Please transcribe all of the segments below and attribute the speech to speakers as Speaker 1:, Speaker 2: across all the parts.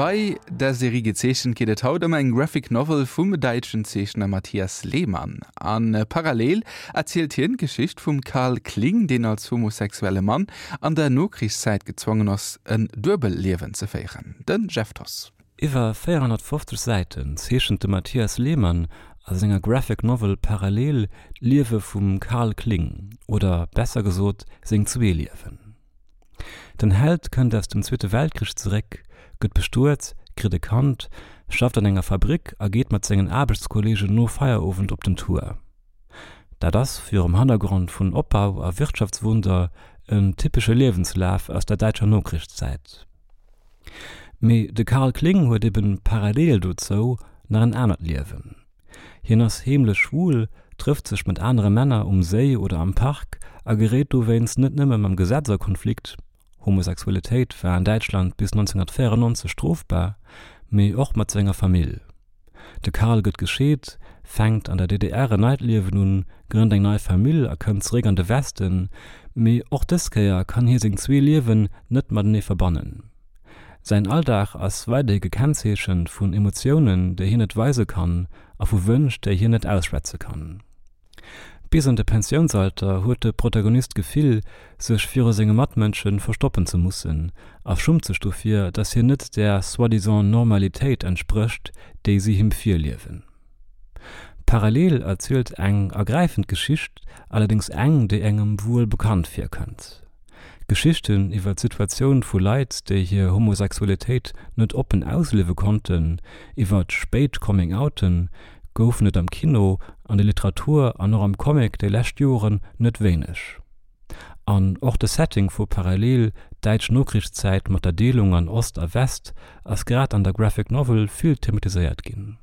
Speaker 1: Bei der Serie Gezeechent geet et haut ëm eng Graphic Novel vum däitschen Zeechner Matthias Lehmann. A parallel erzielt hien d'Geschicht vum Karl Kling, deen als homosexuelle Mann an der Nokrichszäit gezwongen ass, en Duebelliewen ze féieren. De Jeff Thoss.
Speaker 2: Iwwer 450 Säiten zeechent de Matthias Lehmann a senger Graphic Novel Parallel d'Liewe vum Karl Kling, oder besser gesot seng zwee Liewen. Den Held kënnt aus dem Zweete Weltkrich zeréck, gëtt bestuet, kritt e Kand, schafft an enger Fabrick a geet mat sengen Aarbechtskolleegen no Feierowend op den Tour. Dat ass, virum Hannergrond vun Opbau a Wirtschaftswunder, en typesche Liewenslaf aus der däitscher Nokrichszäit. Mee de Karl Kling huet eben parallel dozou nach en anert Liewen. Hien ass heemlech schwul, trëfft sech mat anere Männer um Séi oder am Park a geréit dowéinst net nëmme mam Gesetz a Konflikt, Homosexualitéit war an Däitschland bis 1994 strofbar, mee och mat senger Famill. De Karl gëtt gescheet, fänkt an der DDR en neit Liewen un, grënnt eng nei Famill a kënnt zeréck an de Westen, mee och dës Kéier kann hie seng zwee Liewen net matenee verbannen. Säin Alldag ass weiderhi gekennzeechent vun Emotiounen, déi hien net weise kann a vu Wënsch, déi hien net ausschwätze kann. Bis an de Pensiounsalter huet de Protagonist d'Gefill, sech viru senge Matmënsche verstoppen ze mussen a schummt sech dofir, datt hien net där soi-disant Normalitéit entsprécht, déi si him virliewen. Parallel erzielt eng ergräifend Geschicht, allerdéngs eng, déi engem wuel bekannt virkënnt. Geschichten iwwer d'Situatioun vu Leit, déi hir Homosexualitéit net oppen ausliewe konnten, iwwer spéit Coming-outen, goufen et am Kino, an der Literatur an och am Comic déi lescht Joren net wéineg. An och de Setting vu Parallel, däitsch Nokrichszäit mat der Deelung an Ost a West, ass grad an der Graphic Novel vill thematiséiert ginn.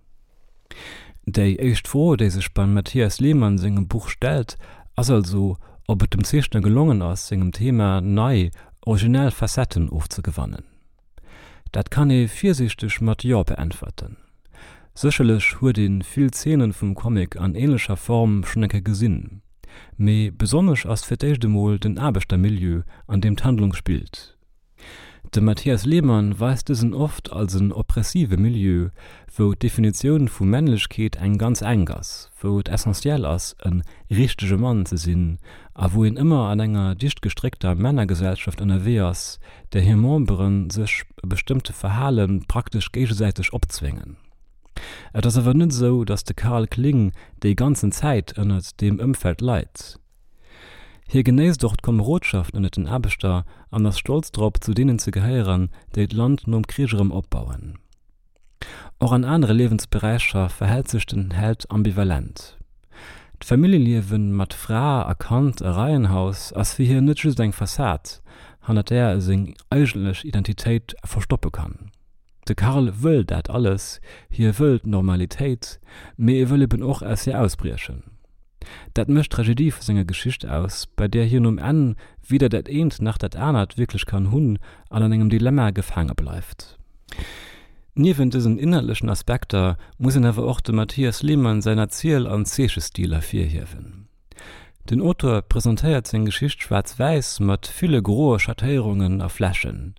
Speaker 2: Déi éischt Fro, déi sech beim Matthias Lehmann sengem Buch stellt, ass also, ob et dem Zeechner gelongen ass, sengem Thema nei, originell Facetten ofzegewannen. Dat kann ee virsiichteg mat Jo beäntwerten. Sécherlech huet ee vill Zeenen vum Comic an änlecher Form schonn eng Kéier gesinn, mee besonnesch ass fir d'éischt emol den Aarbechtermilieu, an deem d'Handlung spillt. De Matthias Lehmann weist dësen oft als en oppressive Milieu, wou d'Definitioun vu Männlechkeet eng ganz enk ass, wou et essentiell ass, e richtege Mann ze sinn a wou een ëmmer an enger dicht gestréckter Männergesellschaft ënnerwee ass, där hir Membere sech e bestëmmte Verhale praktesch géigesäiteg opzwéngen. Et ass awer net esou, datt de Karl Kling déi ganzen Zäit ënnert deem Ëmfeld leit. Hie genéisst och d'Komerodschaft ënnert den Aarbechter an ass stolz drop, zu deenen ze gehéieren, déi d'Land nom Krich erëm opbauen. Och an anere Liewensberäicher verhält sech den Held ambivalent. D'Familljeliewe mat Fra a Kand a Reihenhaus ass fir hien net just eng Fassad, hannert där e seng eigentlech Identitéit verstoppe kann. De Karl wëll dat alles, hie wëll d'Normalitéit, mee e wëll eben och aus hir ausbriechen. Dat mécht d'Tragedie vu senger Geschicht aus, bei där hien um Enn weder dat eent nach dat anert wierklech kann hunn an an engem Dilemma gefaange bleift. Niewent dësen inhaltlechen Aspekter muss een awer och dem Matthias Lehmann säin Erziel an Zeechestil ervirhiewen. Den Auteur presentéiert seng Geschicht schwaarz-wäiss mat ville groe Schattéierungen a Flächen,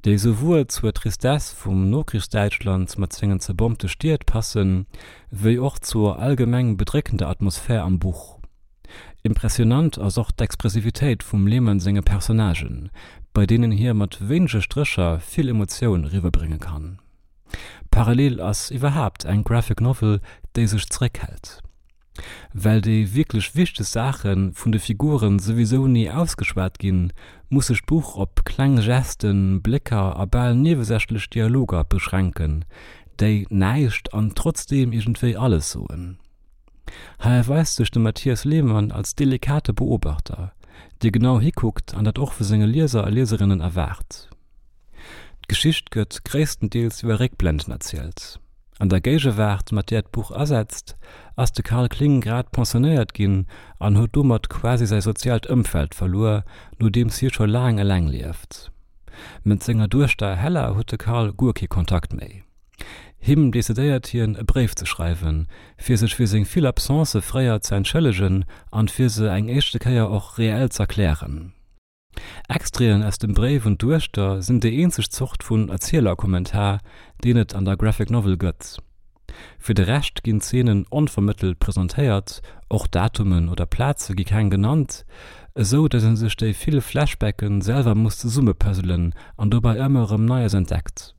Speaker 2: déi souwuel zur Tristesse vum Nokrichsdäitschland mat sengen zerbombte Stied passen, wéi och zur allgemeng bedréckender Atmosphär am Buch. Impressionant ass och d'Expressivitéit vum Lehmann senge Personnagen, bei deenen hie mat wéinege Strécher vill Emotioun eriwwerbrénge kann. Parallel ass iwwerhaapt eng Graphic Novel, déi sech zeréckhält. Well déi wierklech wichteg Saache vun de Figure souwisou ni ausgeschwat ginn, muss sech d'Buch op kleng Gesten, Blécker a bal niewesächlech Dialoger beschränken, déi näischt an trotzdeem iergendwéi alles soen. Hei erweist sech de Matthias Lehmann als delikate Beobachter, dee genau hikuckt an dat och vu senge Lieser a Lieserinnen erwaart. D'Geschicht gëtt gréisstendeels iwwer Réckblenden erzielt. An der Géigewaart, mat där d'Buch asetzt, ass de Karl Kling grad pensionéiert ginn an huet domat quasi säi soziaalt Ëmfeld verluer, nodeems hie scho laang eleng lieft. Mat senger Duechter Hella huet de Karl guer kee Kontakt méi. Him decidéiert hien, e Bréif ze schreiwen, fir sech fir seng vill Absencë fréier ze entschëllegen an fir se eng éischte Kéier och reell z'erklären. Extraiten aus dem Bréif un d'Duechter sinn déi eenzeg Zort vun Erzielerkommentar, deen et an der Graphic Novel gëtt. Fir de Rescht ginn d'Zeenen onvermëttelt presentéiert, och Datumen oder Plaze gi keng genannt, esou datt ee sech déi vill Flashbacke selwer muss zesummepuzzelen an dobäi ëmmer erëm Neies entdeckt.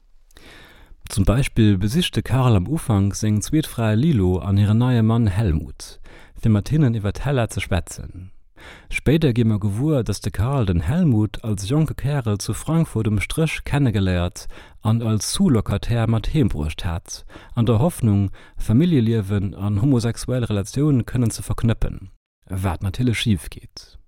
Speaker 2: Zum Beispill besicht de Karl am Ufank seng zweet Fra Lilo an hiren neie Mann Helmut, fir mat hinnen iwwer d'Hella ze schwätzen. Spéider gi mer gewuer, dass de Karl den Helmut als jonke Kärel zu Frankfurt um Stréch kennegeléiert an als Sous-Locataire mat heem bruecht hat, an der Hoffnung, Familljeliewen an homosexuell Relatioun kënnen ze verknëppen. Wat natierlech schif geet.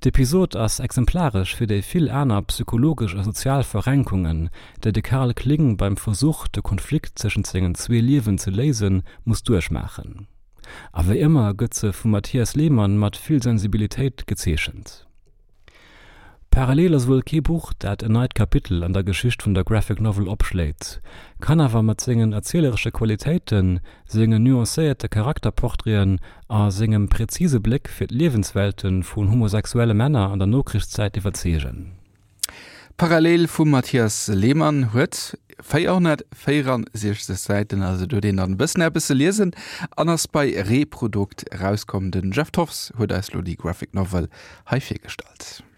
Speaker 2: D'Episod ass exemplaresch fir déi vill aner psychologesch a sozial Verrenkungen, déi de Karl Kling beim Versuch, de Konflikt tëschent sengen zwee Liewen ze léisen, muss duerchmaachen. A wéi ëmmer gëtt se vum Mathias Lehmann mat vill Sensibilitéit gezeechent. Parallel ass wuel kee Buch, dat en neit Kapitel an der Geschicht vun der Graphic Novel opschléit, kann awer mat sengen erzieleresche Qualitéiten, sengen nuancéierte Charakterportraiten a sengem präzise Bléck fir d'Liewenswelte vun homosexuelle Männer an der Nokrichszäit iwwerzeegen.
Speaker 1: Parallel vum Mathias Lehmann huet 464 Säiten, also do huet een dann e bëssen eppes ze liesen an ass bei Reprodukt erauskomm. Den Jeff Thoffs huet eis lo déi Graphic Novel hei virgestallt.